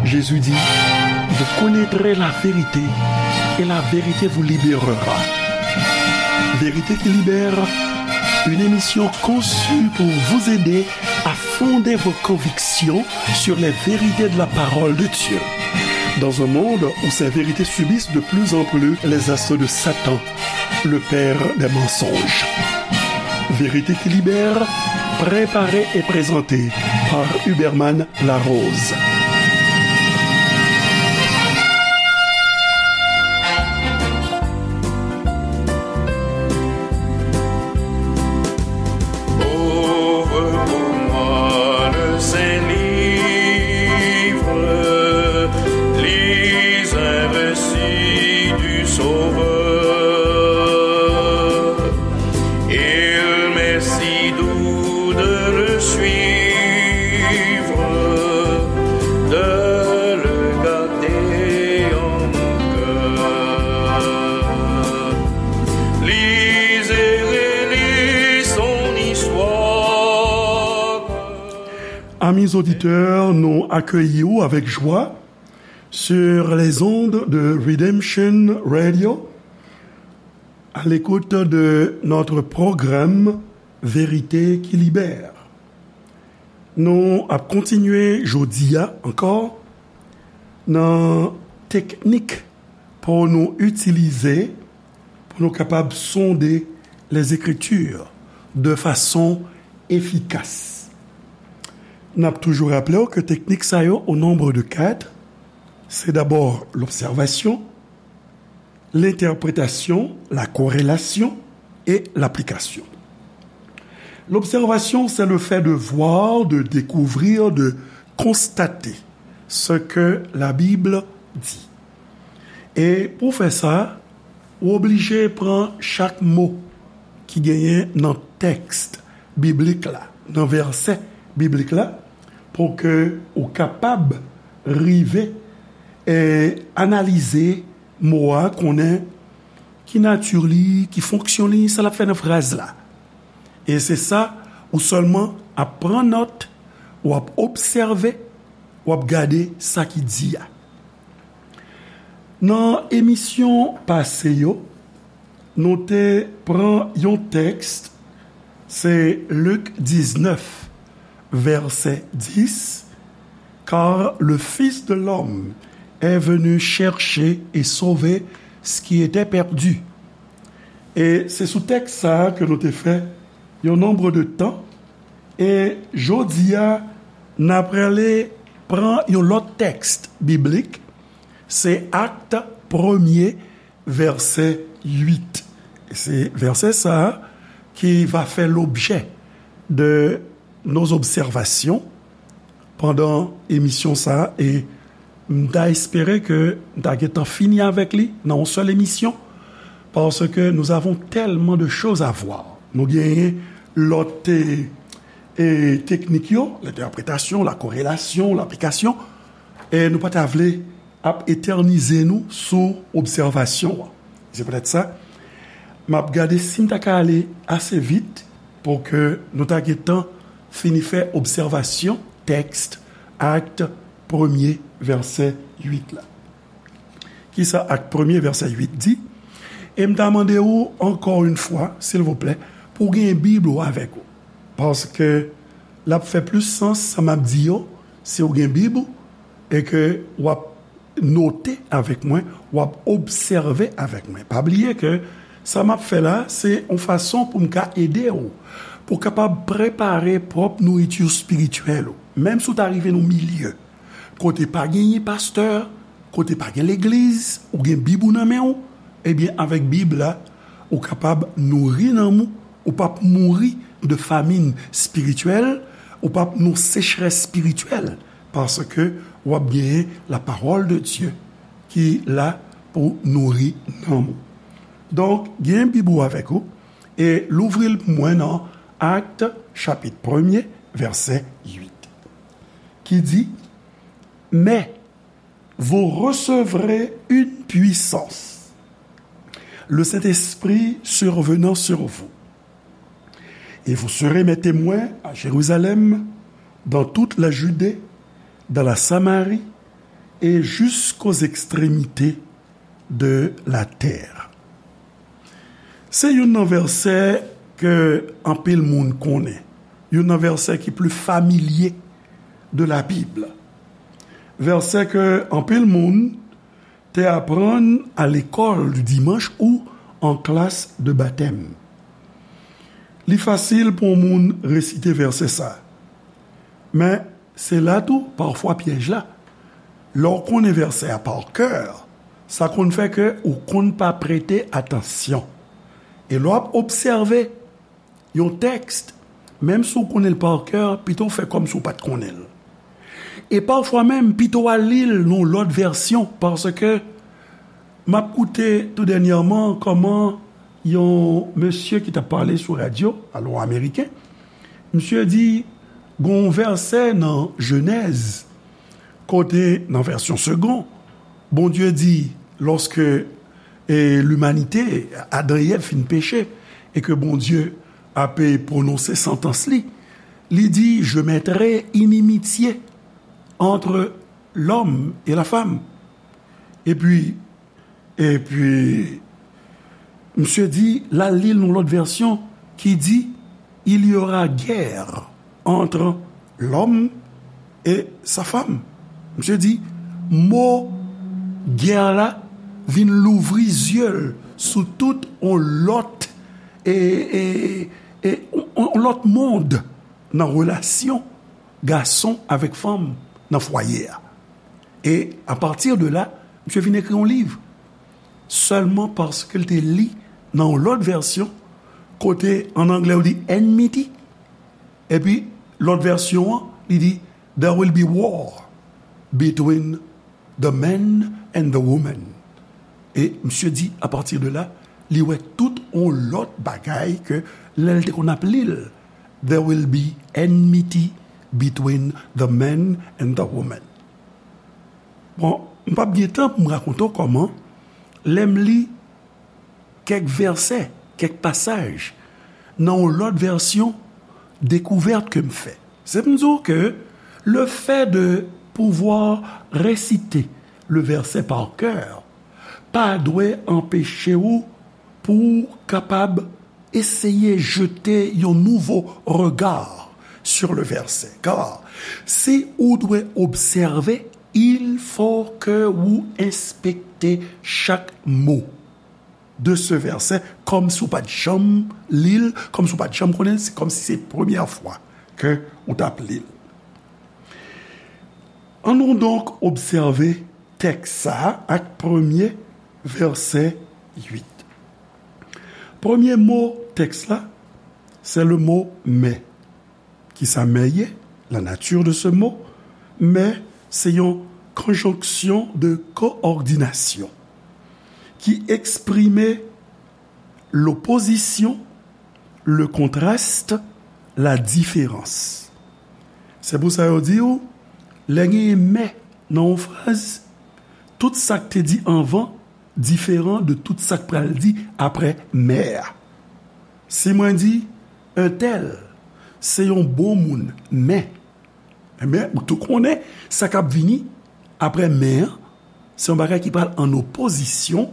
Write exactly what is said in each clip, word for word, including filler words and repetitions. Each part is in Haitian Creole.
Jésus dit, vous connaîtrez la vérité et la vérité vous libérera. Vérité qui libère, une émission conçue pour vous aider à fonder vos convictions sur les vérités de la parole de Dieu. Dans un monde où ces vérités subissent de plus en plus les assauts de Satan, le père des mensonges. Vérité qui libère, préparée et présentée par Huberman Larose. Ouvre pour moi le saint livre, lis un récit du Sauveur. Il m'est si doux de le suivre, de le garder en mon cœur. Lise et relis son histoire. Amis auditeurs, nou akeyi w avèk jwa sur les ondes de Redemption Radio, à l'écoute de notre programme Vérité qui libère. Nou ap kontinye jodi a ankò nan teknik pou nou itilize, pou nou kapab sonde les Écritures de façon efficace. N ap toujou raple w ke teknik sa yo, au nombre de quatre, c'est d'abord l'observation, l'interprétation, la corrélation et l'application. L'observation, c'est le fait de voir, de découvrir, de constater ce que la Bible dit. E pou fè sa, ou oblije pran chak mo ki genyen nan tèks biblik la, nan vèsè biblik la, pou ke ou kapab rive e analize mo a, konnen ki nati li, ki fonksyon li, sa l ap fè nan fraz la. E se sa, ou sèlman ap pran nòt, w ap obsève, w ap gade sa ki di a. Nan emisyon pase yo, nou te pran yon tèks, se Lik diznèf, vèsè dis, Car le Fils de l'homme est venu chercher et sauver ce qui était perdu. E se sou tèks sa a ke nou te fè yon nonb de tan. E jodi a, n ap prale pran yon lòt tèks biblik, se Akt premye, vèsè uit. E se vèsè sa a ki va fè lobjè de nos observations pandan emisyon sa a, e m ta espere ke n ta gentan fini avèk li nan yon sèl emisyon, parce que nous avons tellement de choses à voir. Nou genyen lòt, e, e, teknik yo, l'interprétation, la corrélation, l'application, e nou pa ta vle ap etènize nou sou obsèvasyon an. Se poutèt sa, m ap gade si m ta ka ale ase vit pou ke nou ta gentan fini fè obsèvasyon tèks Akt premye, vèsè uit la. Kisa Akt premye, vèsè uit di? E m ta mande ou, ankò yon fwa, silvouplè, pou w gen Bib ou avèk ou. Paske l ap fè plis sans, sa m ap di yo, si w gen Bib ou, e ke w ap note avèk mwen, w ap obsève avèk mwen. Pa bliye ke sa m ap fè la, se yon fason pou m ka ede w, pou w kapab prepare pwòp nouriti espirityèl ou. Menm si w ta rive nan yon milye kote pa genyen pastè, kote pa gen legliz, ou gen Bib ou nan men w, ebyen, avèk Bib la, ou kapab nouri nanm ou, ou p ap mouri de famin espirityèl, ou p ap nan sechrès espirityèl, paske w ap genyen la parole de Dieu ki la pou nouri nanm ou. Donk, gen Bib ou avèk ou, e louvri l pou mwen nan Akt, chapit premye, vèsè uit, ki di, Mais vous recevrez une puissance, le Saint-Esprit survenant sur vous. Et vous serez mes témoins à Jérusalem, dans toute la Judée, dans la Samarie et jusqu'aux extrémités de la terre. Se youn nan vèsè ke anpil moun konnen, youn nan vèsè ki pli familye de la Bib. Vèsè ke anpil moun te aprann a lekòl di dimanch ou an klas de batèm. Li fasil pou yon moun resite vèsè sa. Men, se la tou, pafwa, pyèj la. Lè w konnen vèsè a pa kè, sa konn fè ke ou konn pa prete atansyon. E lè w ap obsève yon tèks, menm si w konnen l pa kè, pito w fè kòmsi w pa t konnen l. E pafwa menm, pito w al li l nan yon lòt vèsyon, paske m ap koute tou dènyèman kòman yon mesye ki t ap pale sou radyo, alò ameriken, misye di, gen yon vèsè nan Jenèz, kote, nan vèsyon Segond, Bondye di, lòske, e, limanite, Adan e Èv fin peche, e ke Bondye ap pwononse santans li, li di, je mettrai inimitié entre l'homme et la femme. Epi, epi, misye di, l al li l nan lòt vèsyon ki di, il y aura guerre entre l'homme et sa femme. Misye di, mo gè la vin louvri zye l sou tout yon lòt, e, e, e, yon, yon lòt mond nan relasyon gason avèk fanm nan fwaye a. E apati de la, misye vin ekri yon liv. Sèlman paske l te li nan yon lòt vèsyon, kote an anglè yo di enmity, epi lòt vèsyon an, li di, there will be war between the man and the woman. E misye di, apati de la, li wè tout yon lòt bagay ke lè l te konn ap li l, there will be enmity between the man and the woman. Bon, m p ap gen tan pou m rakonte w kòman, lè m li kèk vèsè, kèk pasaj, nan yon lòt vèsyon, dekouvèt ke m fè. Se pou m di w ke le fait de pouvoir réciter le verset par cœur pa dwe anpeche w pou w kapab eseye jete yon nouvo regard sur le verset. Car si ou dwe obsève, il faut que ou enspekte chak mo de ce verset, kòmsi ou pa t janm li l, kòmsi ou pa t janm konnen l, se kòmsi se premyè fwa ke ou t ap li l. Annou donk obsève tèks sa a ak premye vèsè uit. Premye mo tèks la, se le mo mais. Kisa mais ye? La nature de ce mot. Mais se yon konjonksyon de koòdinasyon ki eksprime lopozisyon, le contraste, la différence. Se pou sa yo di w, lè genyen mais nan yon fraz, tout sa k te di anvan diferan de tout sa k pral di apre mais a. Si mwen di, un tel se yon bon moun, men, men ou tou konnen sa k ap vini apre men an, se yon bagay ki pral an opozisyon,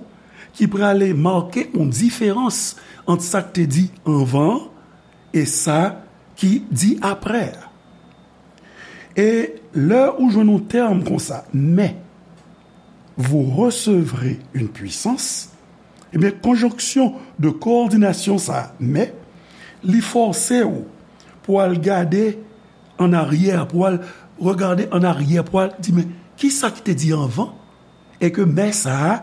ki prale make yon diferans ant sa k te di anvan an e sa ki di apre a. E lè ou jwenn yon tèm konsa, mais vous recevrez une puissance, ebyen, konjonksyon de koòdinasyon sa a, mais, li fòse w pou al gade an aryè, pou al regade an aryè, pou al di, men, kisa ki te di anvan? E ke mais sa a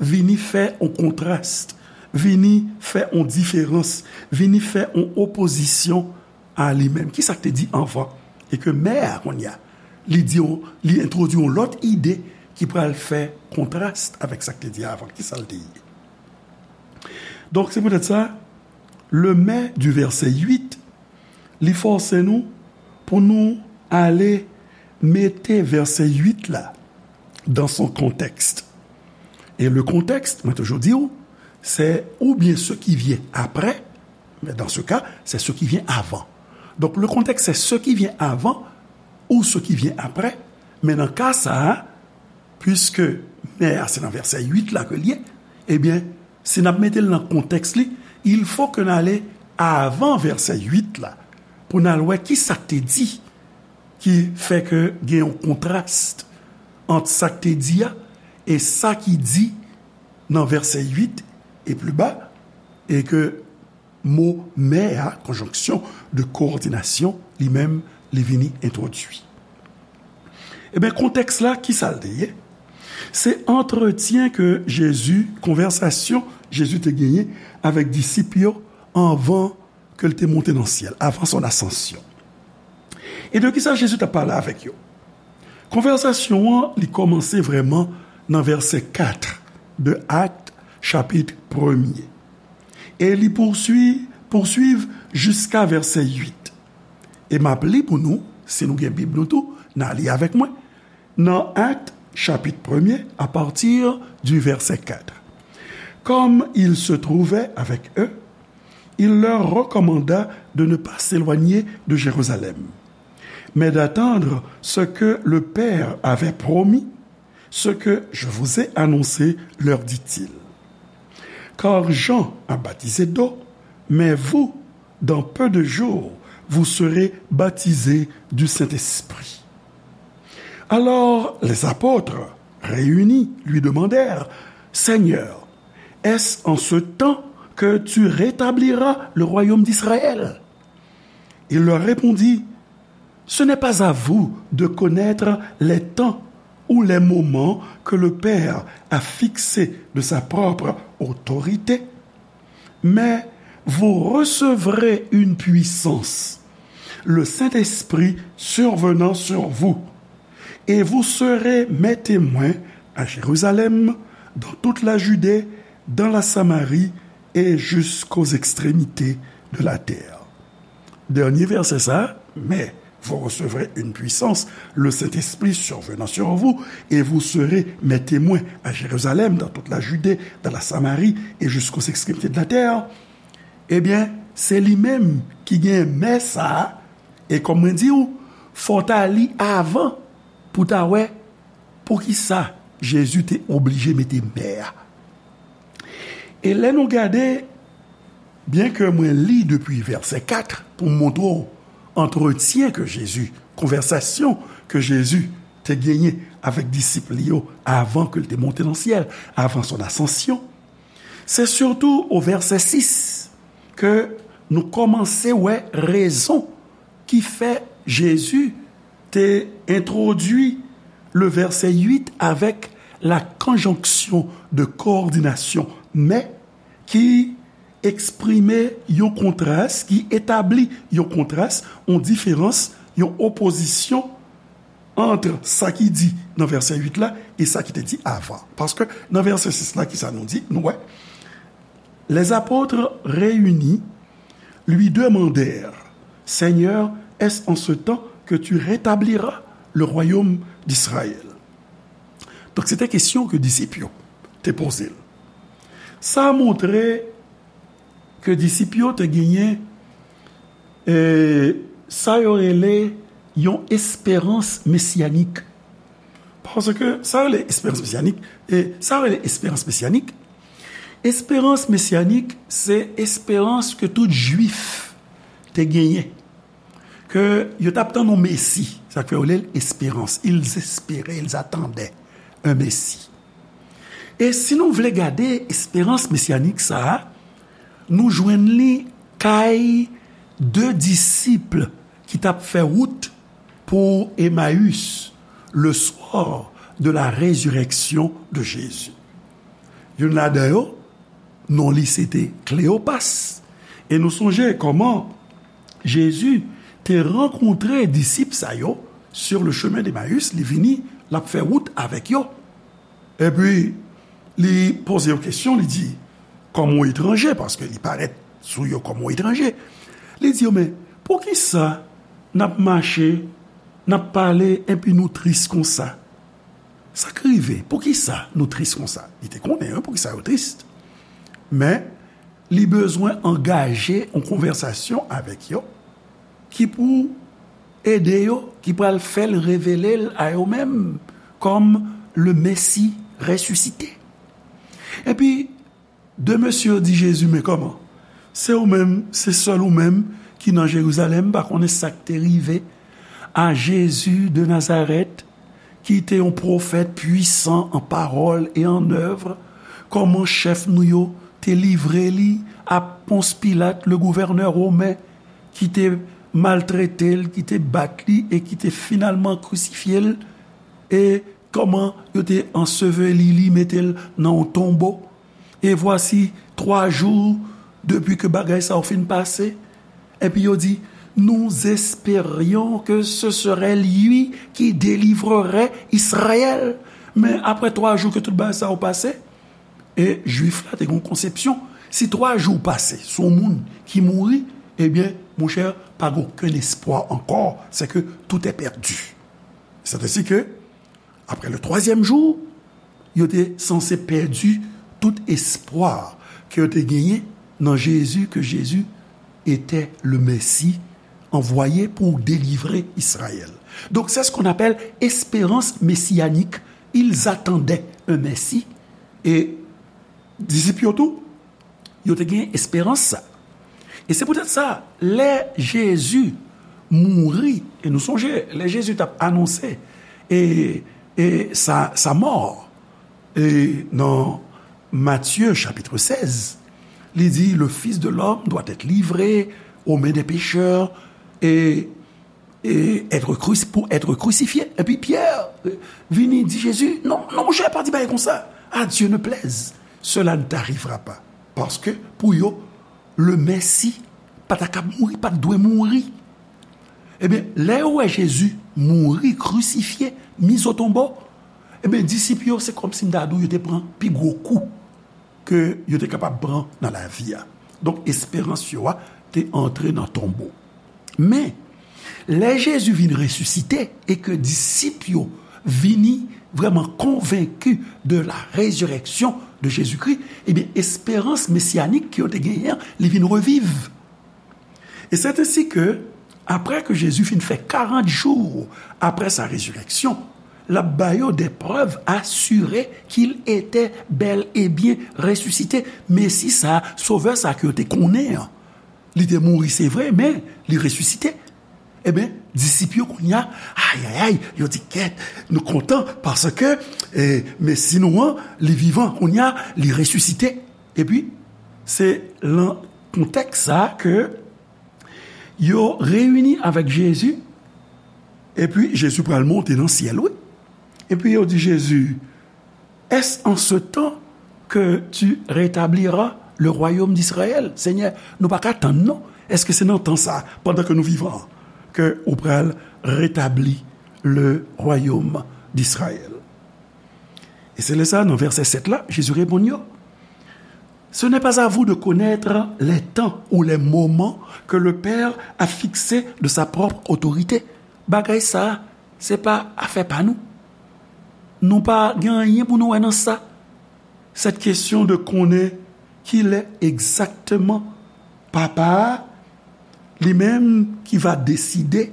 vini fè yon kontras, vini fè yon diferans, vini fè yon opozisyon a li menm. Kisa k te di anvan? E ke mais a, kounye a, li di w, li entwodui yon lòt ide ki pral fè kontras avèk sa k te di avan. Kisa l te ye? Donk, se poutèt sa, le mais du verset huit, li fòse nou pou nou ale mete vèsè uit la dans son contexte. E le contexte, mwen toujou di w, se oubyen ce qui vient après, mais dans ce cas, c'est ce qui vient avant. Donc, le contexte, c'est ce qui vient avant ou ce qui vient après, Men nan ka sa a, piske mè a se nan vèsè uit la ke l ye, ebyen, si n ap mete l nan kontèks li, il faut que n ale avan vèsè uit la pou n al wè ki sa k te di ki fè ke gen yon kontras ant sa k te di a e sa ki di nan vèsè uit e pli ba, e ke mo mè a, conjonction de coordination, li menm, li vini entwodui. Ebyen, kontèks la, ki sa l te ye? Se antretyen ke Jezi, konvèsasyon Jezi te genyen avèk disip yo anvan ke l te monte nan syèl, avan son asansyon. E de ki sa Jezi t ap pale avèk yo? Konvèsasyon an, li kòmanse vrèman nan vèsè kat de Akt, chapit premye. E li pousui-, pouswiv jiska vèsè uit. E m ap li pou nou, si nou gen Bib nou tou, n a li avèk mwen. Nan Akt, chapit premye, à partir du verset quatre. Comme il se trouvait avec eux, il leur recommanda de ne pas s'éloigner de Jérusalem, mais d'attendre ce que le Père avait promis, ce que je vous ai annoncé, leur dit-il. Car Jean a baptisé d'eau, mais vous, dans peu de jours, vous serez baptisés du Saint-Esprit. Alors les apôtres, réunis, lui demandèrent, Seigneur, est-ce en ce temps que tu rétabliras le royaume d'Israël? Il leur répondit, Ce n'est pas à vous de connaître les temps ou les moments que le Père a fixés de sa propre autorité, mais vous recevrez une puissance, le Saint-Esprit survenant sur vous, et vous serez mes témoins à Jérusalem, dans toute la Judée, dans la Samarie et jusqu'aux extrémités de la terre. Dènye vèsè sa, mais vous recevrez une puissance, le Saint-Esprit survenant sur vous, et vous serez mes témoins à Jérusalem, dans toute la Judée, dans la Samarie et jusqu'aux extrémités de la terre. Ebyen, se li menm ki gen mè sa a, e kòm mwen di w, fò w ta li avan pou w ta wè poukisa Jezi te oblije mete mè a. E lè nou gade, byenke mwen li depi vèsè kat pou m montre w antretyen ke Jezi, konvèsasyon ke Jezi te genyen avèk disip li yo avan ke l te monte nan syèl, avan son asansyon, se sitou o vèsè sis ke nou kòmanse wè rezon ki fè Jezi te entwodui le vèsè uit avèk la conjonction de coordination, mais ki eksprime yon kontras, ki etabli yon kontras, yon diferans, yon opozisyon ant sa ki di nan vèsè uit la e sa ki te di avan. Paske nan vèsè sis la, ki sa nou di? Nou wè, les apôtres réunis lui demandèrent, Seigneur, est-ce en ce temps que tu rétabliras le royaume d'Israël? Donk, se te kesyon ke disip yo te poze l. Sa montre ke disip yo te genyen, e, sa yo rele yon esperans mesyanik. Paske sa yo rele esperans mesyanik, e sa yo rele esperans mesyanik, esperans mesyanik, se esperans ke tout Jwif te genyen, ke yo t ap tann yon Mesi. Sa k fè yo rele l esperans. Ils espéraient, ils attendaient un Messie. E si nou vle gade esperans mesyanik sa a, nou jwenn li kay de disip ki t ap fè wout pou Emmaüs, le soir de la résurrection de Jésus. Youn ladan yo, non li se te Kleyopas. E nou sonje kòman Jezi te rankontre disip sa yo sur le chemin d'Emmaüs, li vini, l ap fè wout avèk yo. Epi, li poze yo kesyon, li di, kòm yon etranje, paske li parèt sou yo kòm yon etranje. Li di yo, men, poukisa n ap mache, n ap pale, epi nou tris konsa? Sa k rive? Poukisa nou tris konsa? Li te konnen, wi, poukisa yo tris. Men, li bezwen angaje yon konvèsasyon avèk yo ki pou ede yo, ki pral fè l revele l a yo menm kòm le Messie ressuscité. Epi, de mesye yo di Jezi, men kòman? Se ou menm, se sèl ou menm ki nan Jerizalèm, pa konnen sa k te rive a Jezi de Nazarèt, ki te yon pwofèt pwisan an pawòl e an èv, kòman chèf nou yo te livre li a Pons Pilat, le gouvènè women, ki te maltrete l, ki te bat li e ki te finalman krisifye l, e kòman yo te anseveli li, mete l nan yon tonbo. E vwasi, twa jou depi ke bagay sa yo fin pase, epi yo di, nous espérions que ce serait lui qui délivrerait Israël. Men apre twa jou ke tout bagay sa yo pase, e Jwif la te gen yon konsepsyon, si twa jou pase sou yon moun ki mouri, ebyen, monchè, pa gen okenn espwa ankò, c'est que tout est perdu. C'est ainsi que, après le troisième jour, yo te sanse pèdi tout espwa ke yo te genyen nan Jezi, que Jésus était le Messie envoyé pour délivrer Israël. Donc, c'est ce qu'on appelle espérance messianique. Ils attendaient un Messie. E disip yo tou, yo te gen esperans sa. E se poutèt sa, lè Jezi mouri, e nou sonje, lè Jezi t ap anonse e, e sa, sa mò, e nan Matye chapit sèz, li di, le Fils de l'homme doit être livré aux mains des pécheurs, e, e être cruci-, pour être crucifié. Epi Pyè, e, vini di Jezi, non, non, monchè, pa di bagay konsa. À Dieu ne plaise, cela ne t'arrivera pas. Paske, pou yo, le Messie pa ta kab mouri, pa t dwe mouri. Ebyen, lè yo wè Jezi mouri, krisifye, mis au tombeau, ebyen, disip yo, se kòmsi m ta di w, yo te pran pi gwo kou ke yo te kapab pran nan lavi a. Donk, esperans yo a te antre nan tonbo. Men, lè Jezi vin resisite e ke disip yo vini vrèman konvenki de la résurrection de Jésus-Christ, ebyen, esperans mesiyanik ke yo te genyen an, li vin reviv. E c'est ainsi que, après que Jésus fin fè karant jou apre sa rezirèksyon, l ap ba yo des preuves assurées qu'il était bel et bien ressuscité. Mesi sa, Sovè sa ke yo te konnen an, li te mouri, se vre, men li resisite. Ebyen, disip yo kounye a, ayayay, yo di, kèt, nou kontan, paske, eh, Mesi nou an, li vivan, kounye a, li resisite. Epi, se lan kontèks sa a ke yo reyini avèk Jezi, epi Jezi pral monte nan syèl, wi. Epi yo di Jezi, est-ce en ce temps que tu rétabliras le royaume d'Israël? Senyè, nou pa ka tann non. Èske se nan tan sa, pandan ke nou vivan, ke ou pral retabli le royaume d'Israël? E se lè sa, nan vèsè sèt la, Jezi reponn yo, ce n'est pas à vous de connaître les temps ou les moments que le Père a fixés de sa propre autorité. Bagay sa, se pa afè pa nou. Nou pa gen anyen pou nou wè nan sa. Cette question de konnen kilè egzakteman Papa a, li menm ki va deside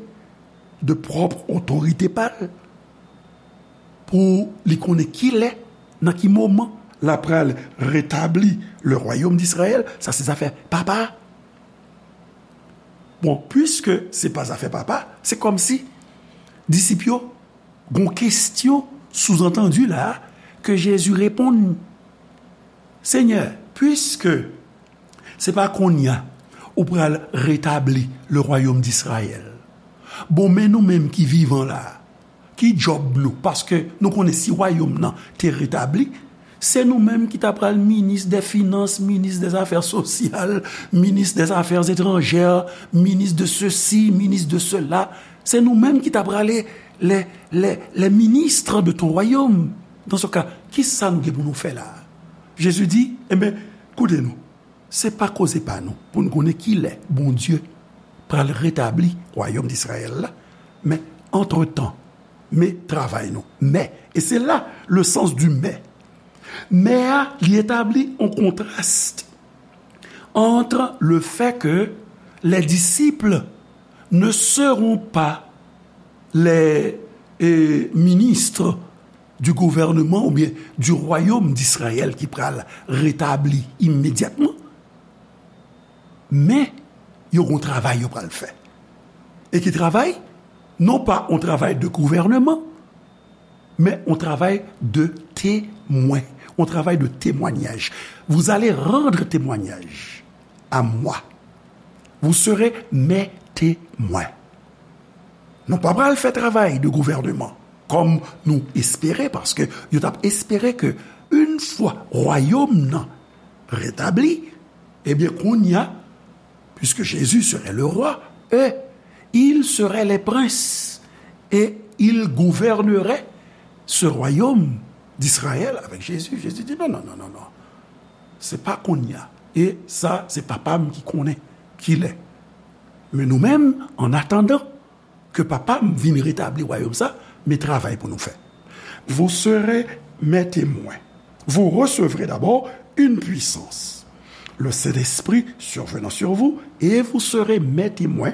de pwòp otorite pa l, pou li konnen kilè, nan ki moman l ap pral retabli le royaume d'Israël, sa se zafè Papa a. Bon, puiske se pa zafè Papa, se kòmsi disip yo gon kestyon souzantandi la ke Jezi reponn, Senyè, puiske se pa kounye a ou pral retabli le royaume d'Israël. Bon, men nou menm ki vivan la, ki djòb nou? Paske nou konnen si wayòm nan te retabli, se nou menm ki ta pral minis dè finans, minis dè zafè sosyal, minis dè zafè etranjè, minis de sesi, minis de sela. Se nou menm ki ta pral les, les, les ministres de ton royaume. Dans ce cas, kisa nou gen pou nou fè la? Jezi di, enben, koute nou. Se pa koze pa nou pou n konnen kilè Bondye pral retabli wayòm Disrayèl la, men antretan, men travay nou. Men, e se la le sens du mais. Men a, li etabli yon kontras entre le fait que les disciples ne seront pas les eh, ministres du gouvernement oubyen du royaume d'Israël ki pral retabli imedyatman, men yo gon travay yo pral fè. E ki travay? Non pa yon travay de gouvènman, men yon travay de temwen, yon travay de temwanyaj. Vous allez rendre témoignage à moi. Vous serez mes témoins. Nou pa pral fè travay de gouvènman kòm nou espere, paske yo t ap espere ke yon fwa wayòm nan retabli, ebyen, kounya, puisque Jésus serait le roi, eux, ils seraient les princes, et ils gouverneraient ce royaume d'Israël avec Jésus. Jésus dit, non, non, non, non, non. Se pa kounya. E sa, se papa m ki konnen kilè. Men nou menm, an atandan ke papa m vin retabli wayòm sa, men travay pou nou fè. Vous serez mes témoins. Vous recevrez d'abord une puissance. Le Saint-Esprit survenant sur vous, et vous serez mes témoins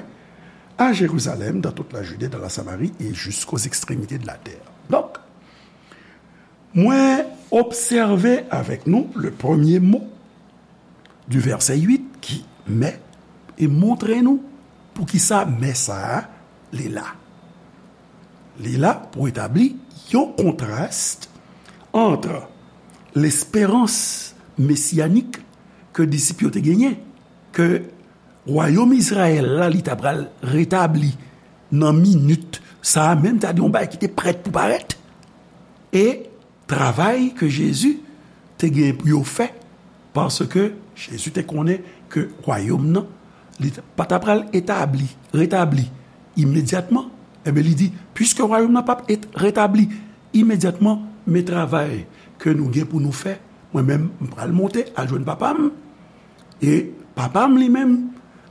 à Jérusalem, dans toute la Judée, dans la Samarie et jusqu'aux extrémités de la terre. Donk, mwen obsève avèk nou le premye mo du verset huit ki mais e montre nou poukisa mais sa a li la. Li la pou etabli yon kontras ant lesperans mesiyanik ke disip yo te genyen, ke wayòm Izrayèl la, li ta pral retabli nan minit sa a menm, ta di yon bagay ki te prèt pou parèt, e travay ke Jezi te gen pou yo fè, paske Jezi te konnen ke wayòm nan, li pa ta pral etabli, retabli imedyatman. Ebyen, li di, piske wayòm nan p ap et-, retabli imedyatman, men travay ke nou gen pou nou fè, mwen menm, m pral monte al jwenn Papa m, e Papa m li menm,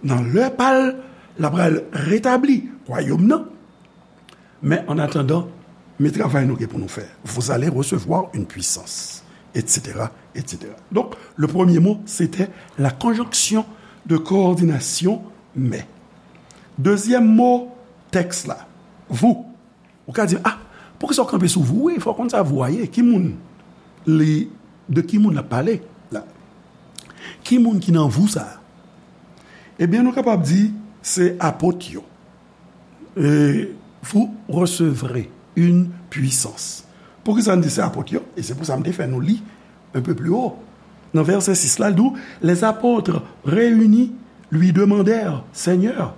nan lè pa l, l ap pral retabli wayòm nan. Men an atandan, men travay nou gen pou nou fè. Vous allez recevoir une puissance, et cetera, et cetera. Donc, le premier mot, c'était la conjonction de coordination mais. Dezyèm mo tèks la, vous. Ou ka di, ah, poukisa w kanpe sou vous? Wi, fò w konn sa vous a ye. Ki moun li, de ki moun l ap pale la? Ki moun ki nan vous sa a? Ebyen, nou kapab di se apot yo. Et vous recevrez une puissance. Poukisa n di se apot yo? E se pou sa m te fè nou li un peu plus haut. Nan vèsè sis la, l di w, les apôtres réunis lui demandèrent, Seigneur,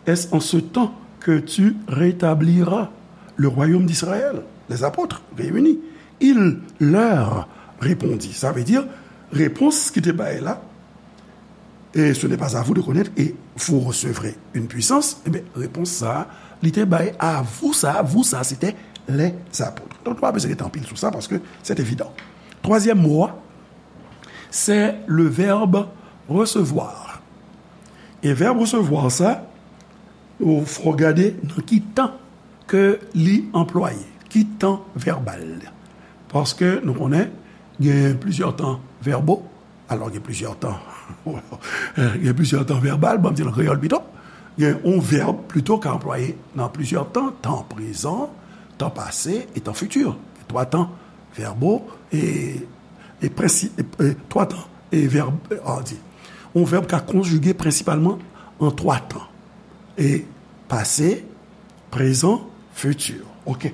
est-ce en ce temps que tu rétabliras le royaume d'Israël? Les apôtres réunis, il leur répondit. Sa vle di, repons ki te bay la, et ce n'est pas à vous de connaître, et vous recevrez une puissance, ebyen, repons sa a, li te bay à vous sa, vous sa, se te les apôtres. Donk, nou pa bezwen rete anpil sou sa, paske c'est évident. Twazyèm mo a, c'est le verbe recevoir. E vèb recevoir sa, ou fò gade nan ki tan ke li anplwaye, ki tan vèbal. Paske nou konnen gen plizyè tan verbaux, alò gen plizyè tan, gen plizyè tan vèbal, bon, m di l an kreyòl pito, gen yon vèb pito ka anplwaye nan plizyè tan, tan prezan, tan pase e tan fiti. Twa tan verbaux e, e prensi-, e, e twa tan e vèb, e, an di. Yon vèb ka konjige prensipalman an twa tan. E pase, prezan, fiti. Oke.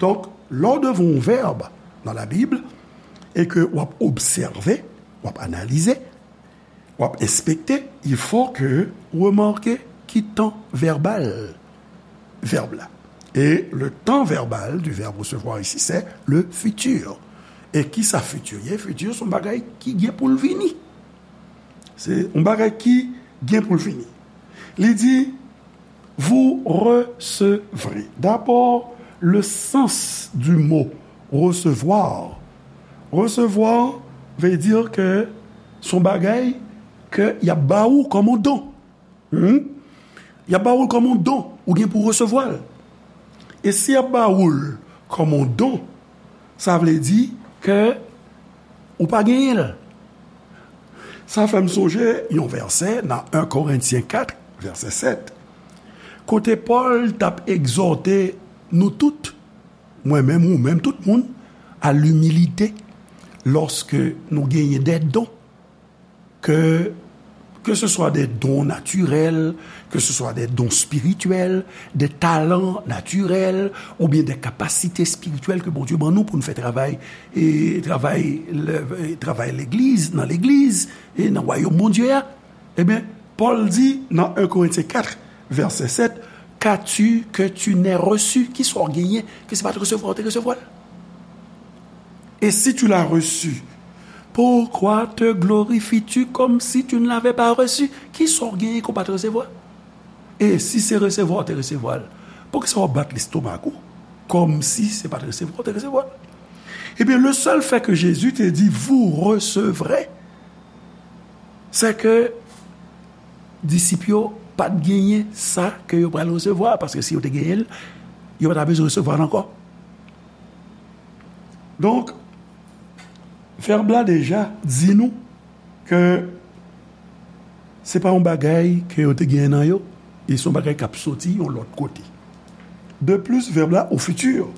Donk, lè w devan yon vèb nan Labib e ke w ap obsève, w ap analize, w ap enspekte, il faut que ou remake ki tan vèbal vèb la. Et le temps verbal du verbe recevoir ici, c'est le futur. E kisa fiti ye? Fiti se yon bagay ki gen pou l vini. Se yon bagay ki gen pou l vini. Li di, vous recevrez. D'abord, le sens du mot recevoir. Recevoir veut dire que se yon bagay ke y ap ba ou kòm yon don. Hmm? Y ap ba ou l kòm yon don, ou gen pou resevwa l. E si y ap ba ou l kòm yon don, sa vle di ke ou pa genyen l. Sa fè m sonje yon vèsè nan en Korentyen kat, vèsè sèt, kote Pòl t ap egzòte nou tout, mwen menm, ou menm, tout moun, à l'humilité, lorsque nous gagnons des dons, que, que ce soit des dons naturels, que ce soit des dons spirituels, des talents naturels, oubyen des capacités spirituelles ke Bondye ban nou pou nou fè travay, e travay, le- e travay legliz, nan legliz, e nan wayòm Bondye a. Ebyen, Pòl di nan un Corinthiens quatre, verset sept, qu'as-tu que tu n'aies reçu? Ki sa w genyen ke se pa t resevwa w te resevwa l? Et si tu l'as reçu, pourquoi te glorifies-tu comme si tu ne l'avais pas reçu? Ki sa w genyen ke w pa t resevwa? E si se resevwa w te resevwa l, poukisa w ap bat lestomak ou kòmsi se pa t resevwa w te resevwa l? Ebyen, le seul fait que Jésus te dit vous recevrez, c'est que disip yo pa t genyen sa ke yo pral resevwa, paske si yo te genyen l, yo pa ta bezwen resevwa l ankò. Donk, vèb la deja di nou ke se pa yon bagay ke yo te genyen nan yo, e se yon bagay k ap soti yon lòt kote. De plus, vèb la au futur.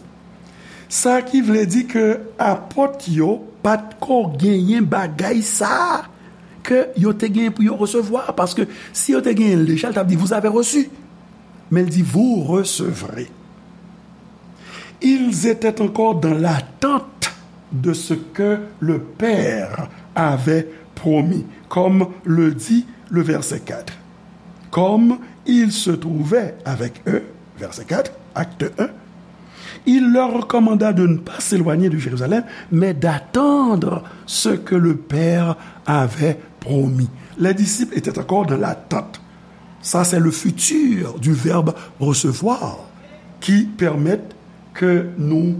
Sa ki vle di ke apòt yo pa t ko genyen bagay sa a ke yo te genyen pou yo resevwa, paske si yo te genyen l deja, l t ap di, vous avez reçu. Men l di, vous recevrez. Ils étaient encore dans l'attente de ce que le Père avait promis, comme le dit le verset quatre. Comme il se trouvait avec eux, verset quatre, acte un, il leur recommanda de ne pas s'éloigner de Jérusalem, mais d'attendre ce que le Père avait promis. Les disciples étaient encore dans l'attente. Ça, c'est le futur du verbe recevoir qui permet ke nou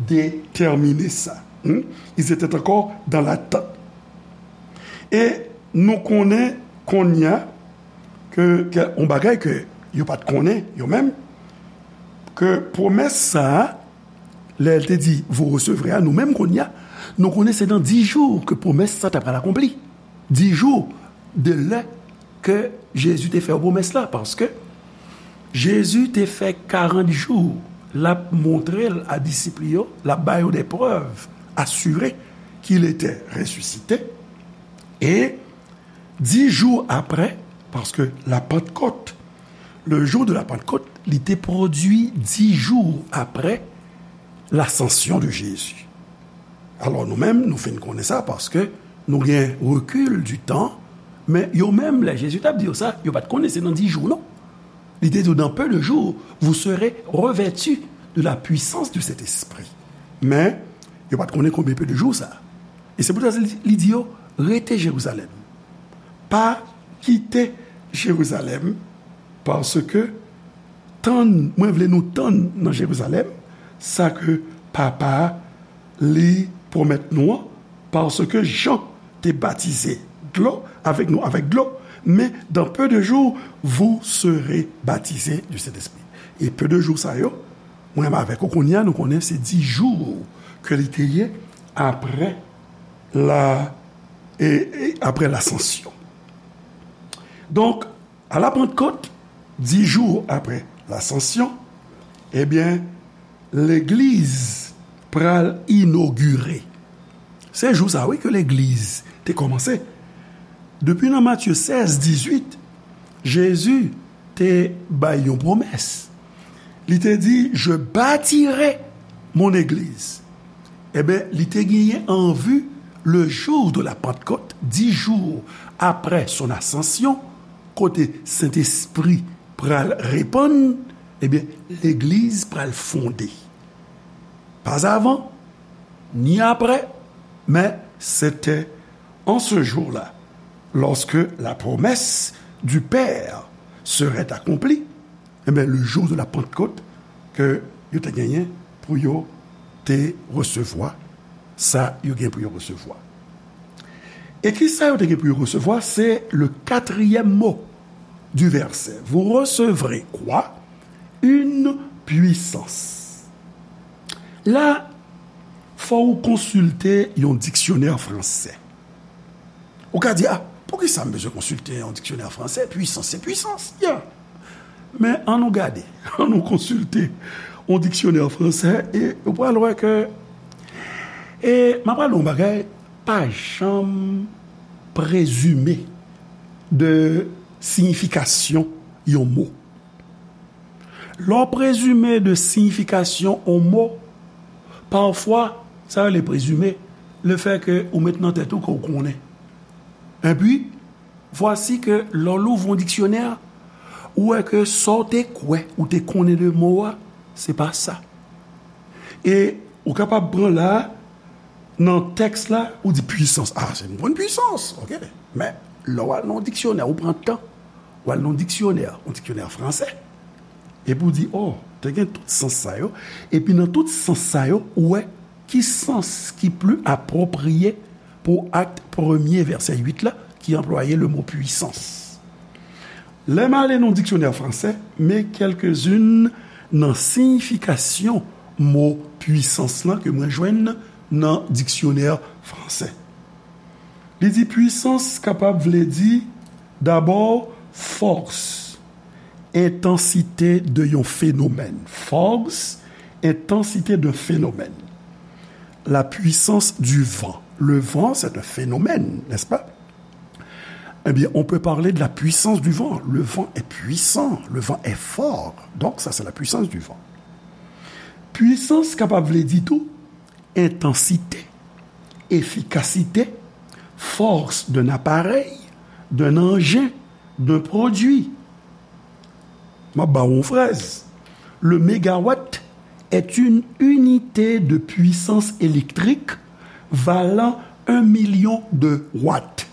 detèmine sa. Hmm? Ils étaient encore dans l'attente. E nou konnen kounye a ke, ke yon bagay ke yo pa t konnen, yo menm, ke pwomès sa a, lè l te di, vous recevrez a, nou menm kounye a, nou konnen se nan dis jou ke pwomès sa ta pral akonpli. Dis jou de lè ke Jezi te fè yo pwomès la, paske Jezi te fè karant jou l ap montre l a disip li yo, l ap ba yo des preuves assurées qu'il était ressuscité. E dis jou apre, paske la Pentecôte, le jour de la Pentecôte, li te pwodui dis jou apre l'ascension de Jésus. Alò, nou menm, nou fin konnen sa paske nou gen recul du temps, men yo menm, lè Jezi t ap di yo sa, yo pa t konnen se nan dis jou, non. Li te di yo, dans peu de jours, vous serez revêtus de la puissance du Saint-Esprit. Men, yo pa t konnen konbyen peu de jou sa. E se poutèt sa li, li di yo, rete Jerizalèm. Pa kite Jerizalèm, paske tann, mwen vle nou tann nan Jerizalèm, sa ke Papa a, li pwomèt nou an, paske Jan te batize dlo, avèk nou, avèk dlo, men dans peu de jours, vous serez baptisés du Saint-Esprit. E peu de jours sa yo, mwen avèk ou kounye a, nou konnen se dis jou ke li te ye apre la, e, e apre lasansyon. Donk, à la Pentecôte, dis jours après l'Ascension, ebyen, legliz pral inogire. Se jou sa, wi, ke legliz te kòmanse. Depi nan Matye sèz, dizuit, Jezi te bay yon pwomès. Li te di, je bâtirai mon église. Ebyen, li te genyen an vi le jour de la Pentecôte, dix jours après son ascension, kote Sentespri pral repann, ebyen, legliz pral fonde. Pas avan, ni apre, men se te an se jou la, lorsque la promesse du Père serait accomplie, ebyen, le jour de la Pentecôte, ke yo te genyen pou yo te resevwa sa yo gen pou yo resevwa. E ki sa yo te gen pou yo resevwa? Se le quatrième mot du verset. Vous recevrez quoi? Une puissance. La, fò ou konsilte yon diksyonè fransè. Ou ka di, a, poukisa m bezwen konsilte yon diksyonè fransè? Puissance, c'est puissance. Yeah. Men ann nou gade, ann nou konsilte yon diksyonè fransè, e ou pral wè ke, e m ap pale yon bagay, pa janm prezime de siyifikasyon yon mo. Lè w prezime de siyifikasyon yon mo, pafwa, sa rele prezime, lefètke ou met nan tèt ou ke w konnen. Epi, vwasi ke lè w louvri yon diksyonè, ou wè ke sa w te kwè ou te konnen de mo a, se pa sa. E ou kapab pran la, nan tèks la, ou di pwisans. A, se m konn pwisans, oke. Men, lè w al nan yon diksyonè, ou pran tan, w al nan yon diksyonè, yon diksyonè fransè, epi w di, o, te gen tout sans sa yo, epi nan tout sans sa yo, ou wè ki sans ki pli apwopriye pou akt premye vèsè uit la, ki anplwaye le mo pwisans. Lè m ale nan diksyonè fransè, men kèlkezin nan siyifikasyon mo pwisans lan ke mwen jwenn nan diksyonè fransè. Li di pwisans kapab vle di, dabò, fòs, entansite de yon fenomèn. Fòs, entansite de fenomèn. La puissance du vent. Le vent, c'est un phénomène, n'est-ce pas? Eh bien, on peut parler de la puissance du vent. Le vent est puissant, le vent est fort. Donc, ça, c'est la puissance du vent. Pwisans kapab vle di tou entansite, efikasite, force d'un appareil, d'un engin, d'un produit. M ap ba w yon fraz. Le mégawatt est une unité de puissance électrique valant un million de watts.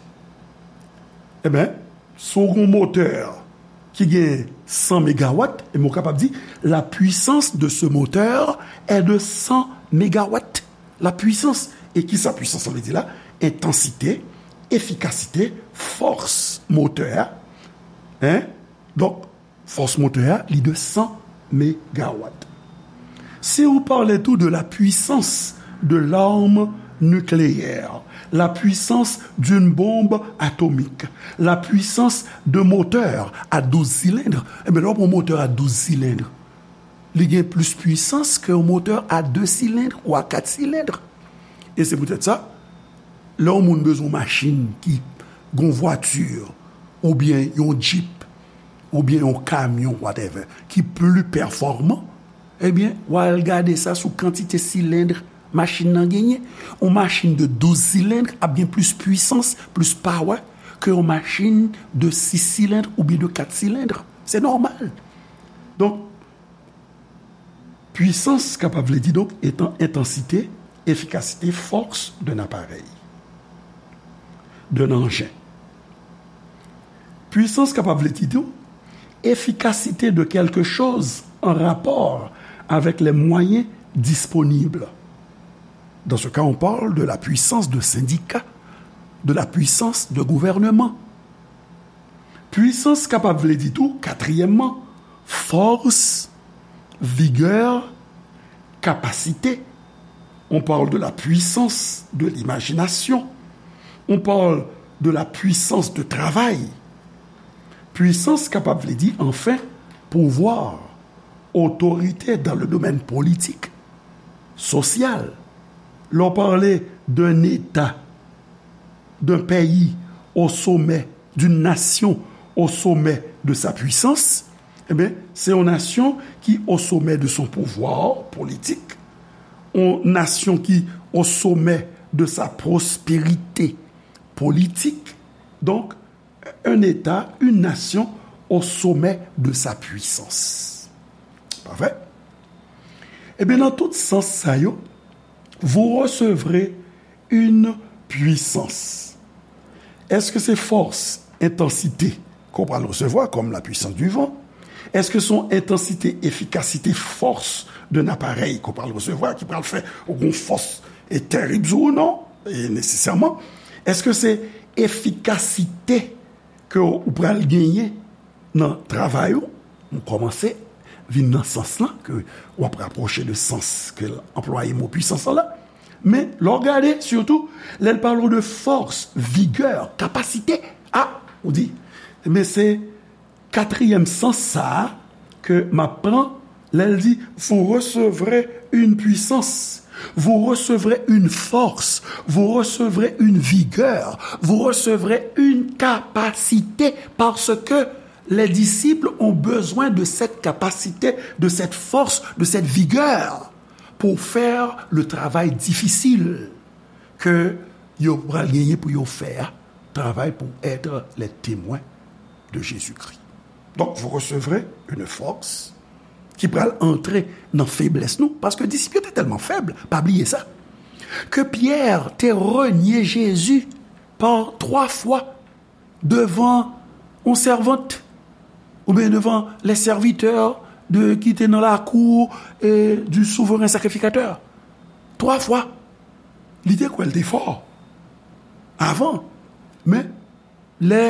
Eben, si w gen yon motè ki gen san megawat, e mwen kapab di, la puissance de ce moteur est de cent mégawatts. La puissance. E kisa pwisans la vle di la? Entansite, efikasite, fòs motè a. Hein? Donk, fòs motè a, li de san megawat. Si ou pale tou de la puissance de l'arme nucléaire, la puissance d'une bombe atomique, la puissance de moteur à douze cylindres, enben, lè w pran motè a douz silend, li gen plis pwisans ke yon motè a de silend ou a kat silend. E se poutèt sa, lè yon moun bezwen yon machin ki gen yon vwati, oubyen yon jip, oubyen yon kamyon, whatever, ki pli pèfòman, ebyen, w al gade sa sou kantite silend machin nan genyen. Yon machin de douz silend ap gen plis pwisans, plis power, ke yon machin de sis silend oubyen de kat silend. Se nòmal. Donk, pwisans kapab vle di, donk, etan, entansite, efikasite, fòs d'un appareil, d'un engin. Pwisans kapab vle di tou efikasite de quelque chose en rapport avec les moyens disponibles. Dans ce cas, on parle de la puissance de syndicat, de la puissance de gouvernement. Pwisans kapab vle di tou, katriyèmman, force, vigueur, capacité. On parle de la puissance de l'imagination. On parle de la puissance de travail. Pwisans kapab vle di, anfen, pouvwa, otorite dans le domaine politique, social. Lè w pale d'un État, d'un pays au sommet, d'une nation au sommet de sa puissance, eh bien, c'est une nation qui, au sommet de son pouvoir politique, une nation qui, au sommet de sa prospérité politique, donc, un État, une nation au sommet de sa puissance. Pa vre? Ebyen, nan tout sans sa yo, vous recevrez une puissance. Èske se fòs, entansite ke w pral resevwa, comme la puissance du vent? Èske se yon entansite, efikasite, fòs d'un appareil ke w pral resevwa, ki pral fè ou gen yon fòs e terib sou ou? Non, e nesesèman. Èske se efikasite ke ou pral genyen nan travay ou? M kòmanse vin nan sans lan, ke w ap rapwoche de sans ke l anplwaye mo pwisans lan la. Men, lè w gade, sitou, lè l pale w de fòs, vigè, kapasite, a, ou di, men se katriyèm sans sa a ke m ap pran Lè l di, vous recevrez une puissance, vous recevrez une force, vous recevrez une vigueur, vous recevrez une capacité, parce que les disciples ont besoin de cette capacité, de cette force, de cette vigueur pour faire le travail difficile ke yo pral genyen pou yo fè a, travay pou être les témoins de Jésus-Christ. Donc, vous recevrez une force ki pral antre nan feblès nou, paske disip yo te tèlman fèb, pa bliye sa, ke Pyè te renye Jezi pa twa fwa devan yon sèvant, oubyen devan les serviteurs de, ki te nan lakou, e, du souverain sacrificateur. Twa fwa, li te kwè l te fò avan. Men, lè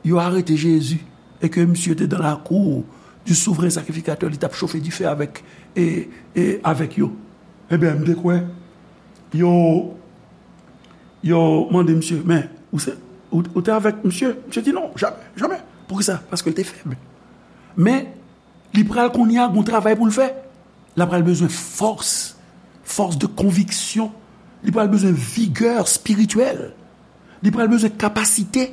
yo arete Jezi e ke misye te dan lakou du souverain sacrificateur, li t ap chofe dife avèk, e, e, avèk yo. Ebyen, m te kwè yo, yo mande misye, men, ou se, ou, ou te avèk misye? Misye di, non, jamè, jamè. Poukisa? Paske l te fèb. Men, li pral kounye a gon travay pou l fè. L pral bezwen fòs, fòs de konviksyon. Li pral bezwen vigè espirityèl. Li pral bezwen kapasite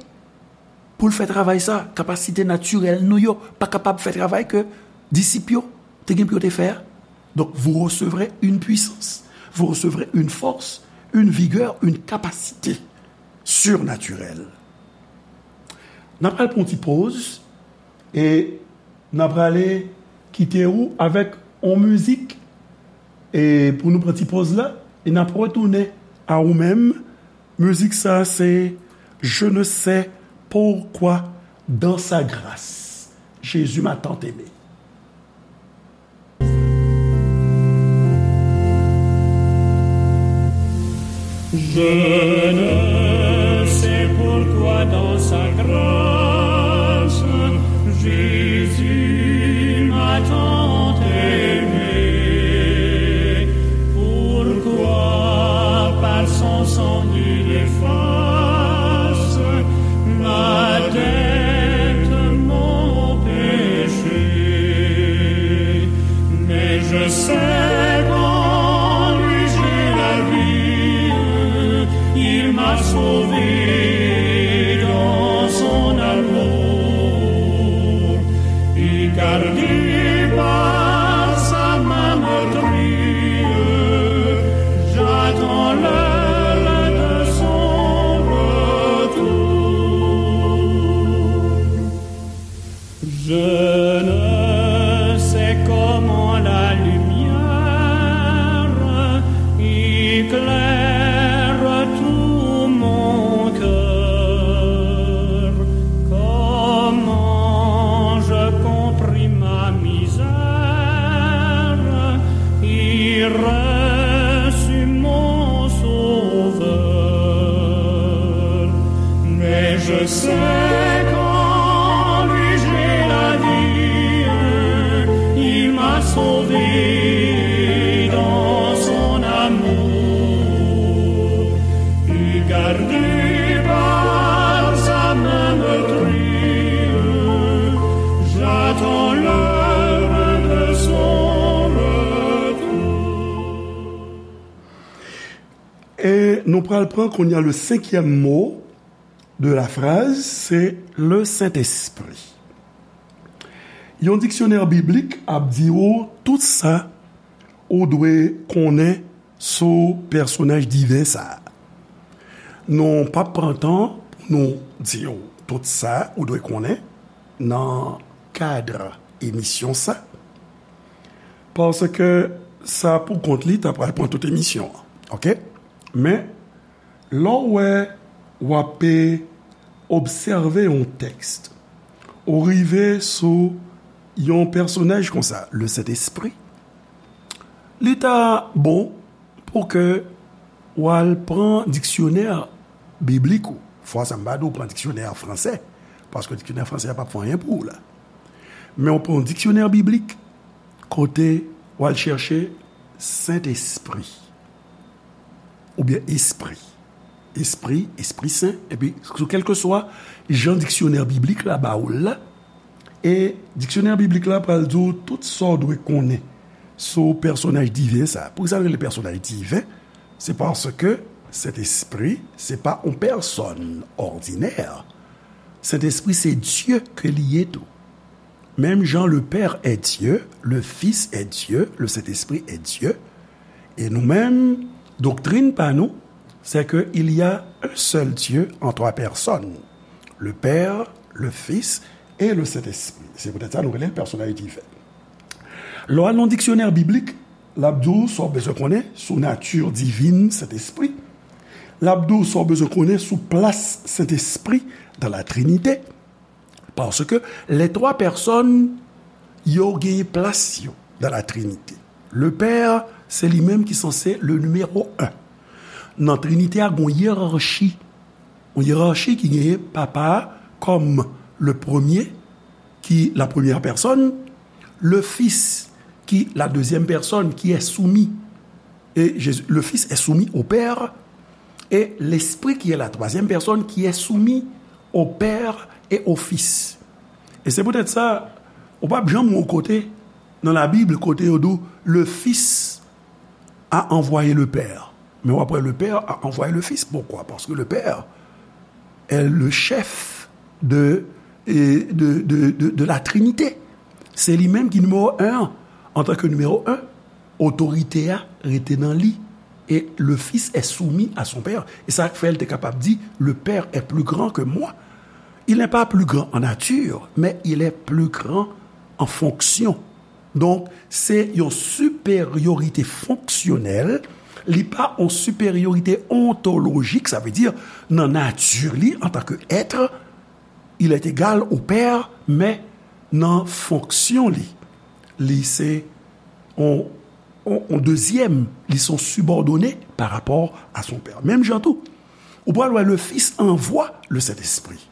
pou l fè travay sa. Kapasite natirèl nou yo pa kapab fè travay ke disip yo te gen pou yo te fè a. Donk, vous recevrez une puissance, vous recevrez une force, une vigueur, une capacité surnaturelle. N ap al pran yon ti poz e n ap prale kite ou avèk yon mizik, e pou nou pran ti poz la, e n ap retounen a ou menm. Mizik sa se Je ne sais pourquoi dans sa grâce, Jésus m'a tant aimé. Je ne sais pourquoi dans sa grâce, Jésus m'a tant aimé. Pourquoi par son sang il efface ma dette, mon péché. Mais je sais qu'en lui j'ai la vie, il m'a sauvé dans son amour. Et gardé par sa main meurtrie, j'attends l'heure de son retour. Je ne sais comment la lumière éclaire tout mon cœur, comment je comprime ma misère et reçu mon Sauveur. Mais je sais qu'en lui j'ai la vie, il m'a sauvé dans son amour, et gardé par sa main meurtrie, j'attends l'heure de son retour. E nou pral pran kounye a le cinquième mot de la phrase, se le Saint-Esprit. Yon diksyonè biblik ap di ou tout sa ou dwe konnen sou pèsonaj diven sa a. Nou p ap pran tan pou nou di w tout sa ou dwe konnen nan kad emisyon sa, paske sa pou kont li ta pral pran tout emisyon an, oke? Men, lè w wè w ap obsève yon tèks, ou rive sou yon pèsonaj konsa, le Sentespri, li ta bon pou ke w al pran diksyonè biblik ou. Fwa sa m pa di w pran diksyonè fransè, paske diksyonè fransè a p ap fè anyen pou ou la. Men w pran yon diksyonè biblik, kote w al chèche Sentespri. Oubyen espri. Espri, Espri Sen, epi sou kèlkeswa jan diksyonè biblik la ba ou l la, e diksyonè biblik la pral di w tout sa w dwe konnen sou pèsonaj diven sa. Poukisa l rele pèsonaj diven? Se paske Sentespri se pa yon pèsòn òdinè. Sentespri se Dye ke li ye tou. Menm jan le Père est Dieu, le Fils est Dieu, le Saint-Esprit est Dieu. E nou menm, doktrin pa nou, c'est que il y a un seul Dieu en trois personnes, le Père, le Fils et le Saint-Esprit. Se poutèt sa nou rele l pèsonaj diven. Lè w al nan diksyonè biblik, l ap di w sa w bezwen konnen sou nati divin Sentespri. L ap di w sa w bezwen konnen sou plas Sentespri dans la Trinité. Paske lè twa pèsòn yo genyen plas yo dans la Trinité. Le Père, se li menm ki sanse le numéro un. Nan Trinite a, gen yon yerachi. Yon yerachi ki genyen papa a kòm le premier, ki la première personne, le Fils, ki la deuxième personne, qui est soumis. Et Jésus, le Fils est soumis au Père, et l'Esprit, qui est la troisième personne, qui est soumis au Père et au Fils. E se poutèt sa, ou p ap janm wè yon kote nan Labib kote yo di w, le Fils a envoyé le Père. Men w ap wè le Père a envoyé le Fils. Pourquoi? Parce que le Père est le chef de, de, de, de, de la Trinité. Se li menm ki nimewo en an. Antanke nimewo en, otorite a rete nan li. Et le Fils est soumis à son Père. E sa k fè l te kapab di, le Père est plus grand que moi. Il n'est pas plus grand en nature, mais il est plus grand en fonction. Donk, se yon siperyorite fonksyonèl, li pa yon siperyorite ontolojik, sa vle di, nan nati li, antanke èt, il est égal au Père, men nan fonksyon li, li se yon, yon, yon dezyèm, li se yon sibòdone pa rapò a son Père. Menm jan tou, ou pral wè le Fils envoie le Saint-Esprit.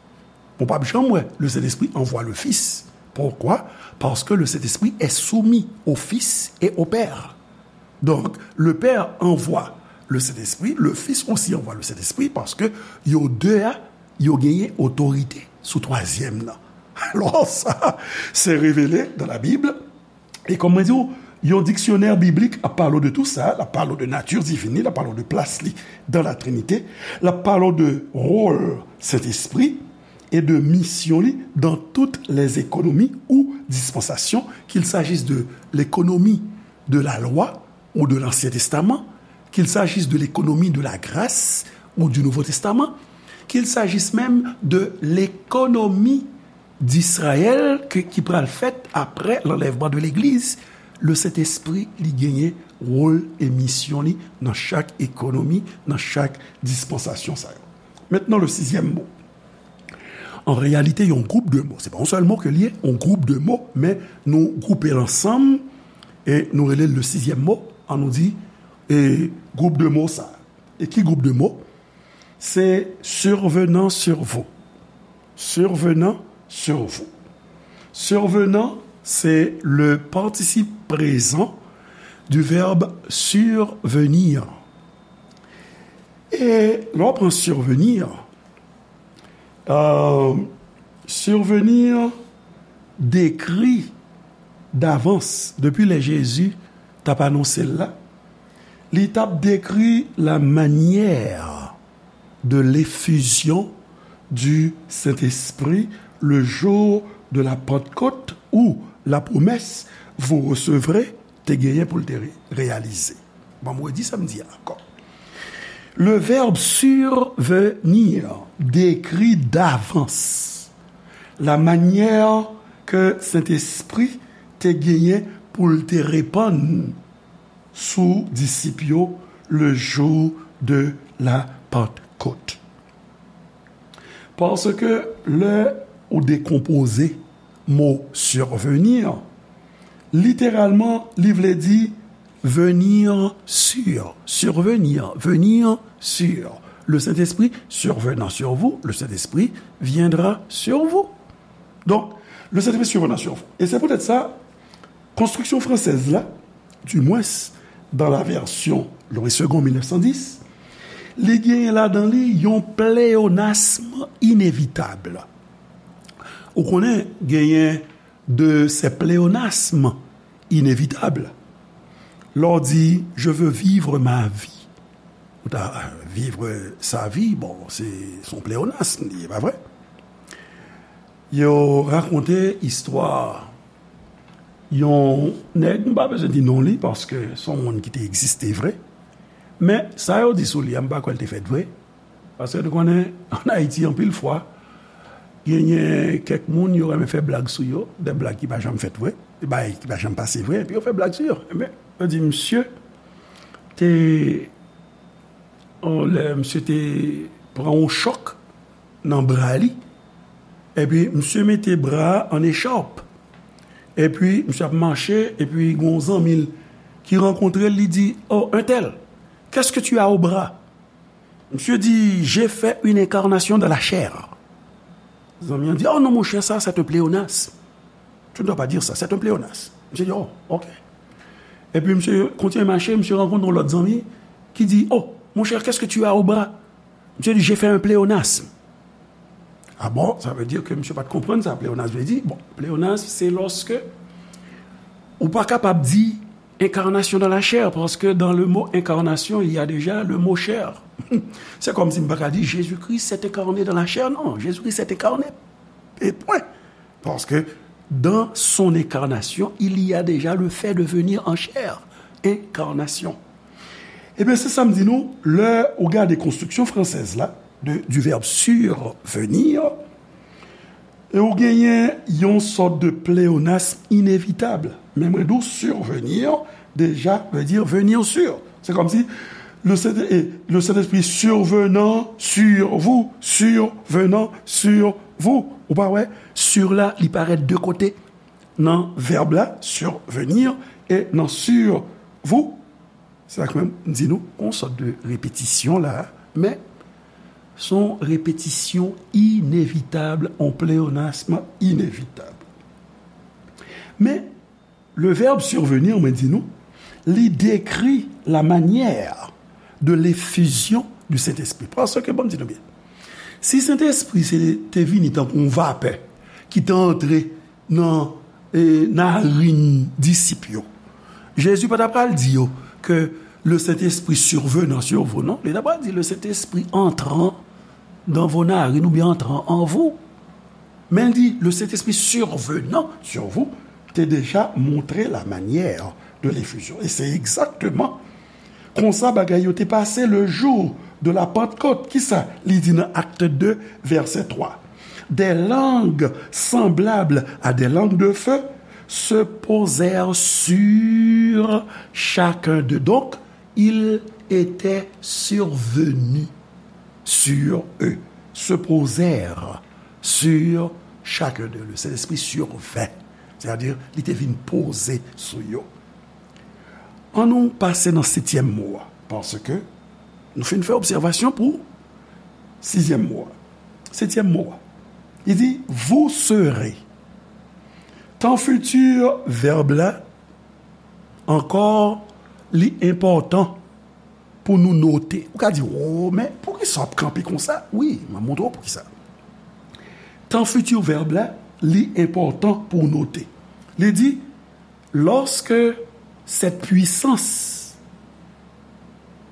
Ou p ap janm wè le Saint-Esprit envoie le Fils. Pourquoi? Parce que le Saint-Esprit est soumis au Fils et au Père. Donc, le Père envoie le Saint-Esprit, le Fils aussi envoie le Saint-Esprit, paske yo de a, yo genyen otorite sou twazyèm nan. Alò, sa, se revele dans la Bible. E kòm mwen di w, yon diksyonè biblik ap pale w de tou sa, l ap pale w de nati divin li, l ap pale w de plas li dans la Trinité, l ap pale w de wòl Sentespri e de misyon li dans toutes les économies ou dispensations, qu'il s'agisse de l'économie de la loi ou de l'Ancien Testament, qu'il s'agisse de l'économie de la grâce ou du Nouveau Testament, qu'il s'agisse même de l'économie d'Israël ke, ki pral fèt apre l'enlèvement de l'Église, le Sentespri li genyen wòl e misyon li nan chak ekonomi, nan chak dispansasyon sa yo. Mentnan, le sizyèm mo. An reyalite, yon gwoup de mo. Se pa yon sèl mo ke l ye, yon gwoup de mo, men nou gwoupe l ansanm e nou rele l le sizyèm mo. An nou di, e, gwoup de mo sa. E ki gwoup de mo? Se survenant sur vous. Survenant sur vous. Survenant, c'est le participe présent du verbe survenir. E lè w pran survenir, euh, survenir dekri davans, depi lè Jezi t ap anonse l la, li t ap dekri la manière de l'effusion du Saint-Esprit le jour de la Pentecôte, où la promesse vous recevrez te genyen pou l te re-, reyalize. Bon, m redi sa m di a ankò. Le verbe survenir décrit d'avance la manière ke Sentespri te genyen pou l te repann sou disip yo le jour de la Pentecôte. Paske lè ou dekonpoze mo survenir, literalman, li vle di venir sur, survenir, venir sur. Le Saint-Esprit survenant sur vous, le Saint-Esprit viendra sur vous. Donk, le Saint-Esprit survenant sur vous. E se poutèt sa, Konstriksyon fransèz la, du moins dans la version Louis Segond mil nèf san dis, li genyen ladan li yon pléonasme inévitable. Ou konnen, genyen de ces pléonasmes inévitables. Lè w di, je veux vivre ma vie, ou ta viv sa vi, bon, se se yon pleonasm li ye, pa vre? Yo rakonte istwa yon nèg, m pa bezwen di non li, paske se yon moun ki te egziste vre. Men, sa yo di sou li a, m pa kwè l te fèt vre. Paske nou konnen, ann Ayiti, anpil fwa, genyen kèk moun, yo renmen fè blag sou yo, de blag ki pa janm fèt vre, de bagay ki pa janm pase vre, epi yo fè blag sou yo. Ebyen, yo di, misye te, on, lè misye te pran yon chòk nan bra li, epi misye mete bra a an echòp, epi misye ap mache, epi gen yon zanmi l ki rankontre l, li di, oh, un tel, qu'est-ce que tu as au bras? Misye di, j'ai fait une incarnation dans la chair. Zanmi an di, oh non, monchè, sa, c'est un pléonasme. Tu ne dois pas dire ça, c'est un pléonasme. Misye di, oh, ok. Epi misye kontinye mache, misye rankontre yon lòt zanmi ki di, oh, monchè, qu'est-ce que tu as au bras? Misye di, j'ai fait un pléonasme. Ah bon, sa vle di ke misye pa t konprann sa pleonasm vle di. Bon, pleonasm, se lòske ou pa kapab di incarnation dans la chair, parce que dans le mot incarnation, il y a déjà le mot chair. Se kòmsi m pa ka di, Jésus-Christ s'est incarné dans la chair. Non, Jésus-Christ s'est incarné. Et point. Parce que dans son incarnation, il y a déjà le fait de venir en chair. Incarnation. Ebyen, se sa m di nou, lè ou gade konstriksyon fransèz la, de, du verbe survenir, e ou genyen yon sòt de pléonasme inévitable. Men mwen di w survenir, déjà, veut dire venir sur. Se kòmsi le Saint, et le Saint-Esprit survenant sur vous, survenant sur vous. Ou pa wè, sur la, li parèt de kote. Nan vèb la, survenir, e nan sur vous, se sa k fè m di nou, yon sòt de repetisyon la, men se yon repetisyon inevitab, yon pleonasm inevitab. Men, le verbe survenir, mwen di nou, li dekri la manière de l'effusion du Saint-Esprit. Paske, ban m di nou byen, si Sentespri se te vini tankou yon vapè ki te antre nan, e, narin disip yo, Jezi pa t ap pral di yo ke le Saint-Esprit survenant sur vous, non. Li t ap pral di le Saint-Esprit entrant dans vos narines oubyen entrant en vous. Men l di, le Saint-Esprit survenant sur vous te déjà montré la manière de l'effusion. E se egzakteman konsa bagay yo te pase le jour de la Pentecôte. Kisa li di nan Actes deux, verset trois? Des langues semblables à des langues de feu se posèrent sur chacun d'eux. Donc, il était survenu sur eux, se posèrent sur chacun d'eux. Le Saint-Esprit survint, c'est-à-dire, li te vin poze sou yo. An nou pase nan setyèm mo a, paske nou fin fè obsèvasyon pou sizyèm mo a. Setyèm mo a, li di, vous serez. Tan fiti vèb la, ankò, li enpòtan pou nou note. Ou ka di, oh, men poukisa w ap kanpe konsa? Wi, m ap montre w poukisa. Tan fiti vèb la, li enpòtan pou w note. Li di, lorsque cette puissance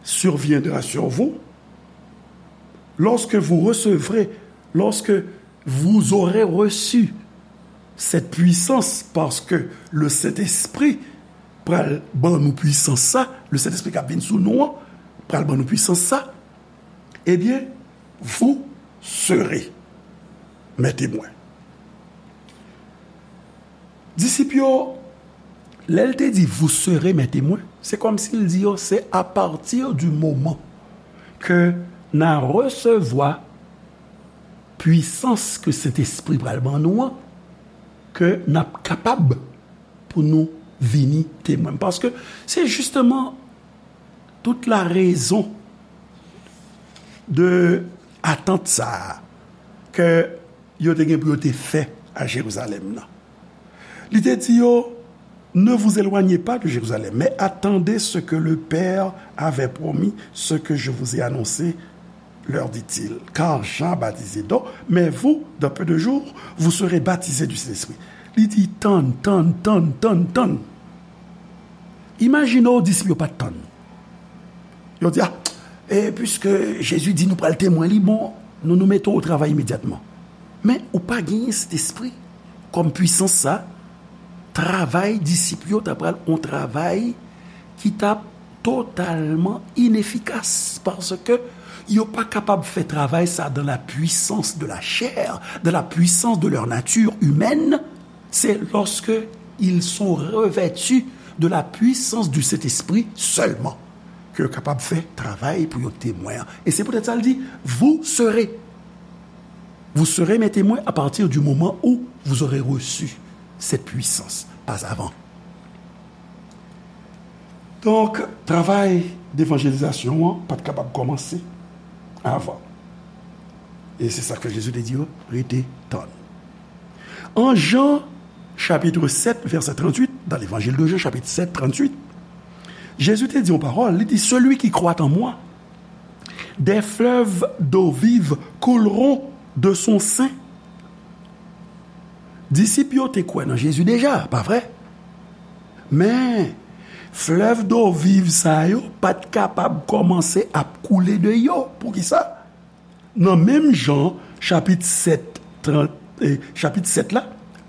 surviendra sur vous, lorsque vous recevrez, lorsque vous aurez reçu cette puissance, paske le Saint-Esprit pral ban nou pwisans sa, le Saint-Esprit k ap vin sou nou an, pral ban nou pwisans sa, ebyen, vous serez mes témoins. Disip yo, lè l te di, vous serez mes témoins, se kòmsi l di yo, c'est à partir du moment que n a resevwa pwisans ke Sentespri pral ban nou an, ke n ap kapab pou nou vini temwen m. Paske se jisteman tout la rezon de atant sa a ke yo te gen pou yo te fè a Jerizalèm nan. Li te di yo, ne vous éloignez pas de Jérusalem, mais attendez ce que le Père avait promis, ce que je vous ai annoncé, leur dit-il. Car Jean baptisait d'eau, mais vous, dans peu de jours, vous serez baptisés du Saint-Esprit. Li di, tann, tann, tann, tann, tann. Imajine w disip yo pa t tann. Yo di, a, e piske Jezi di nou pral temwen li, bon, nou, nou mete w o travay imedyatman. Men, ou pa genyen Sentespri kòm pwisans sa, travay disip yo ta pral yon travay ki t ap totalman inefikas, paske yo pa kapab fè travay sa dans la puissance de la chair, dans la puissance de leur nature humaine. C'est lorsque ils sont revêtus de la puissance du Saint-Esprit seulement ke yo kapab fè travay pou yo temwen an. E se poutèt sa l di, vous serez, vous serez mes témoins à partir du moment où vous aurez reçu cette puissance, pas avant. Donk, travay devanjelizasyon an pa t kapab kòmanse avan. E se sa k fè Jezi te di yo, rete tann. An Jan, chapitre sept, verset trente-huit, dans l'évangile de Jean, chapitre sept, trente-huit, Jezi te di yon pawòl, li di, celui qui croit en moi, des fleuves d'eau vive couleront de son sein. Disip yo te kwè nan Jezi deja, pa vre? Men, flèv do viv sa yo pa t kapab kòmanse ap koule de yo. Poukisa? Nan menm Jan, chapit sèt, trant, eh, chapit sèt la,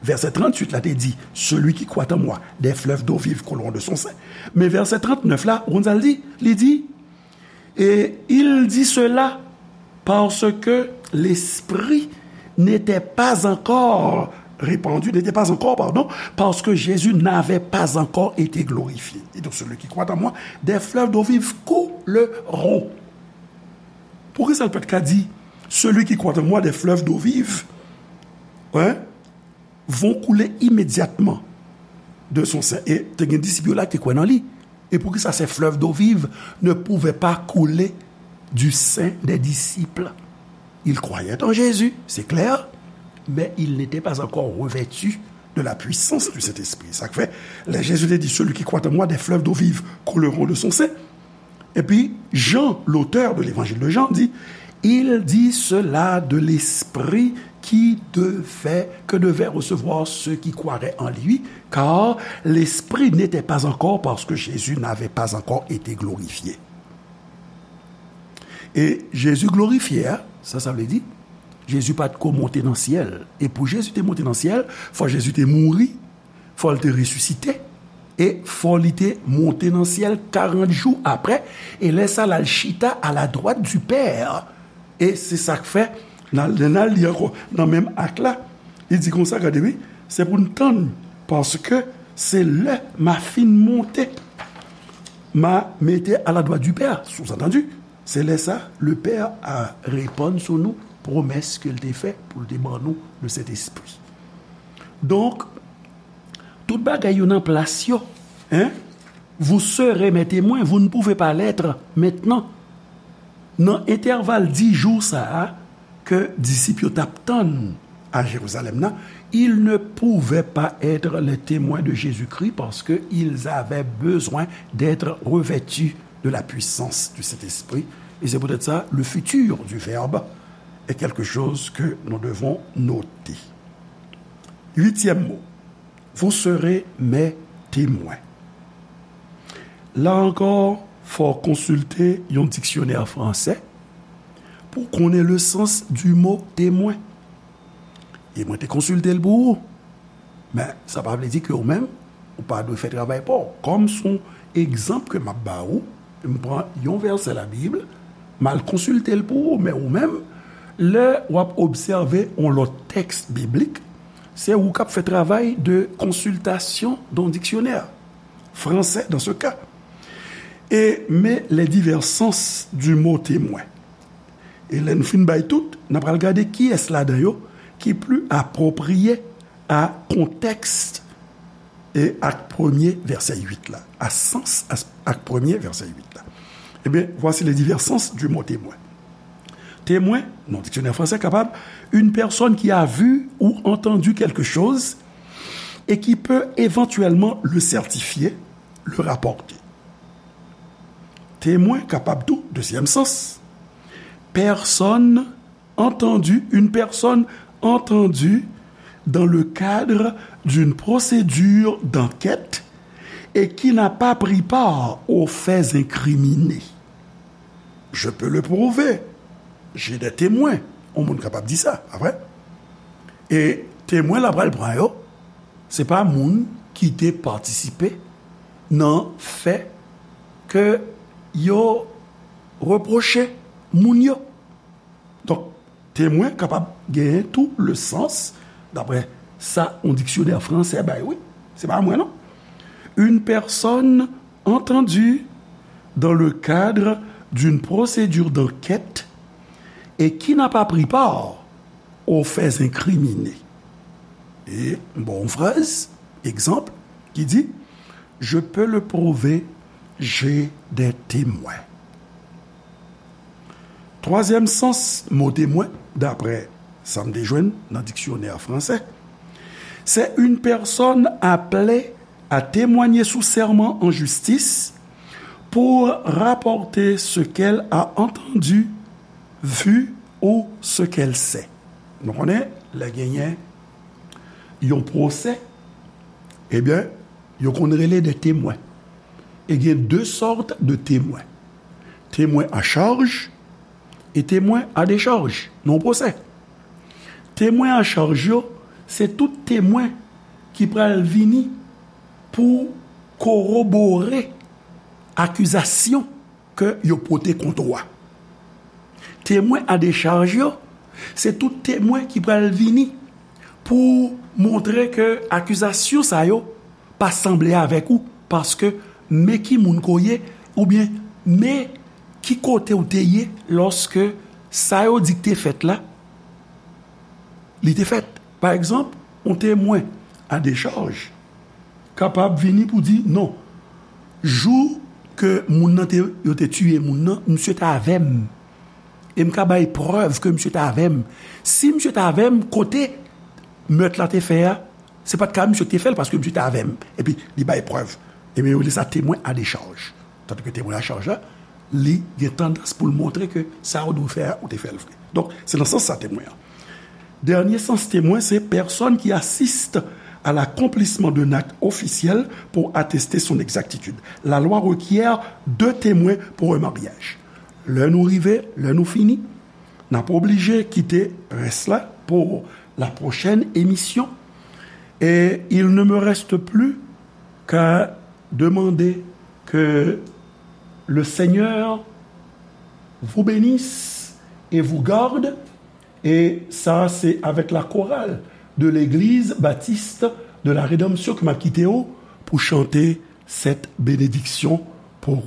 vèsè tranntuit la te di, celui qui croit en moi, des fleuves d'eau vive couleront de son sein. Men vèsè trannèf la, ou konn sa l di? Li di, et il dit cela parce que l'Esprit n'était pas encore répandu, n'était pas encore, pardon, parce que Jésus n'avait pas encore été glorifié. Et donc celui qui croit en moi, des fleuves d'eau vive couleront. Poukisa l pa t ka di, celui qui croit en moi, des fleuves d'eau vive, hein, vont couler immédiatement de son sein? E te gen disip yo la ki te kwè nan li. Et poukisa ces fleuves d'eau vive ne pouvaient pas couler du sein des disciples? Ils croyaient en Jésus, c'est clair, mais ils n'étaient pas encore revêtus de la puissance du Saint-Esprit. Sa k fè, lè Jezi te di, celui qui croit en moi, des fleuves d'eau vive couleront de son sein. Epi, Jean, l'auteur de l'évangile de Jean, dit, il dit cela de l'Esprit qui devait, que devaient recevoir ceux qui croiraient en lui, car l'Esprit n'était pas encore, parce que Jésus n'avait pas encore été glorifié. E Jezi glorifye a, sa sa vle di? Jezi pa t ko monte nan syèl. E pou Jezi te monte nan syèl, fò Jezi te mouri, fò l te resisite, e fò li te monte nan syèl karant jou apre, e lè sa l al chita à la droite du Père. E se sa k fè, nan, lè n al li ankò, nan menm Ak la, li di konsa, gade wi, se pou n tann, paske se lè m a fin monte, m a mete à la droite du Père, sous-entendu, se lè sa, le Père a reponn sou nou pwomès ke l te fè pou l te ban nou le Sentespri. Donk, tout bagay yo nan plas yo, hein? Vous serez mes témoins, vous ne pouvez pas l'être maintenant. Nan entèval dis jou sa a ke disip yo t ap tann a Jerizalèm nan, ils ne pouvaient pas être les témoins de Jésus-Christ parce que ils avaient besoin d'être revêtus de la puissance du Saint-Esprit. Et c'est peut-être ça, le futur du Verbe est quelque chose que nous devons noter. Huitième mot, vous serez mes témoins. La ankò, fò w konsilte yon diksyonè fransè pou w konnen le sens du mot témoin. E mwen te konsilte l pou ou. Men, sa pa vle di ke ou menm, ou pa dwe fè travay pa w. Kòm s on egzanp ke m ap ba ou, m pran yon vèsè Labib, m al konsilte l pou ou. Men ou menm, lè w ap obsève yon lòt tèks biblik, se ou k ap fè travay de konsiltasyon de yon diksyonè fransè, dans ce cas. Et, mais les divers sens du mot témoin. E lè n fin bay tout, n a pral gade kiyès ladan yo ki pli apwopriye a kontèks e ak premye vèsè uit la, a sans a, ak premye vèsè uit la. Ebyen, voici les divers sens du mot témoin. Témoin, nan diksyonè fransè kapab, une personne qui a vu ou entendu quelque chose et qui peut éventuellement le certifier, le rapporter. Témoin kapab tou, dezyèm sans, personne entendue, une personne entendue dans le cadre d'une procédure d'enquête et qui n'a pas pris part aux faits incriminés. Je peux le prouver. J'ai des témoins. Yon moun kapab di sa, pa vre? E temwen la pral pran yo, se pa moun ki te patisipe nan fè ke yo repwoche moun yo. Donk, temwen kapab genyen tou le sans, daprè sa yon diksyonè fransè bay, wi. Se pa mwen, non. Une personne entendue dans le cadre d'une procédure d'enquête et qui n'a pas pris part aux faits incriminés. E m ba w yon fraz, egzanp, ki di, Je peux le prouver, j'ai des témoins. Twazyèm sans mo temwen, daprè sa m te jwenn nan diksyonè fransè, c'est une personne appelée à témoigner sous serment en justice pour rapporter ce qu'elle a entendu, vu ou ce qu'elle sait. Nou konnen, lè genyen yon pwosè, ebyen, yo konn rele de temwen. E gen de sòt de temwen. Temwen a chaj e temwen a dechaj nan yon pwosè. Temwen a chaj yo, se tout temwen ki pral vini pou korobore akizasyon ke yo pote kont ou a. Temwen a dechaj yo, se tout temwen ki pral vini pou montre ke akizasyon sa yo pa sanble avèk ou, paske men ki moun ke w ye, oubyen men ki kote w te ye lòske sa yo di k te fèt la, li te fèt. Pa egzanp, yon temwen a dechaj kapab vini pou di, non, jou ke moun nan te, yo te tiye moun nan, misye t avè m. E m ka bay prèv ke misye t avè m. Si misye t avè m, kote mèt la te fè a, se pa t ka misye ki te fè l, paske misye t avè m. Epi, li bay prèv. Ebyen, yo rele sa temwen a dechaj. Tandike temwen a chaj la, li gen tandans pou l montre ke sa ou dwe fè a, ou te fè l vre. Donk, se nan sans sa temwen an. Dènye sans temwen, se personne qui assiste à l'accomplissement d'un acte officiel pour attester son exactitude. La loi requiert deux témoins pour un mariage. Lè nou rive, lè nou fini, n ap oblije kite rès la pour la prochaine émission. Et il ne me reste plus qu'à demander que le Seigneur vous bénisse et vous garde. Et ça, c'est avec la chorale de l'Église Baptiste de la Rédemption que m'a quitté pou chanter cette bénédiction pour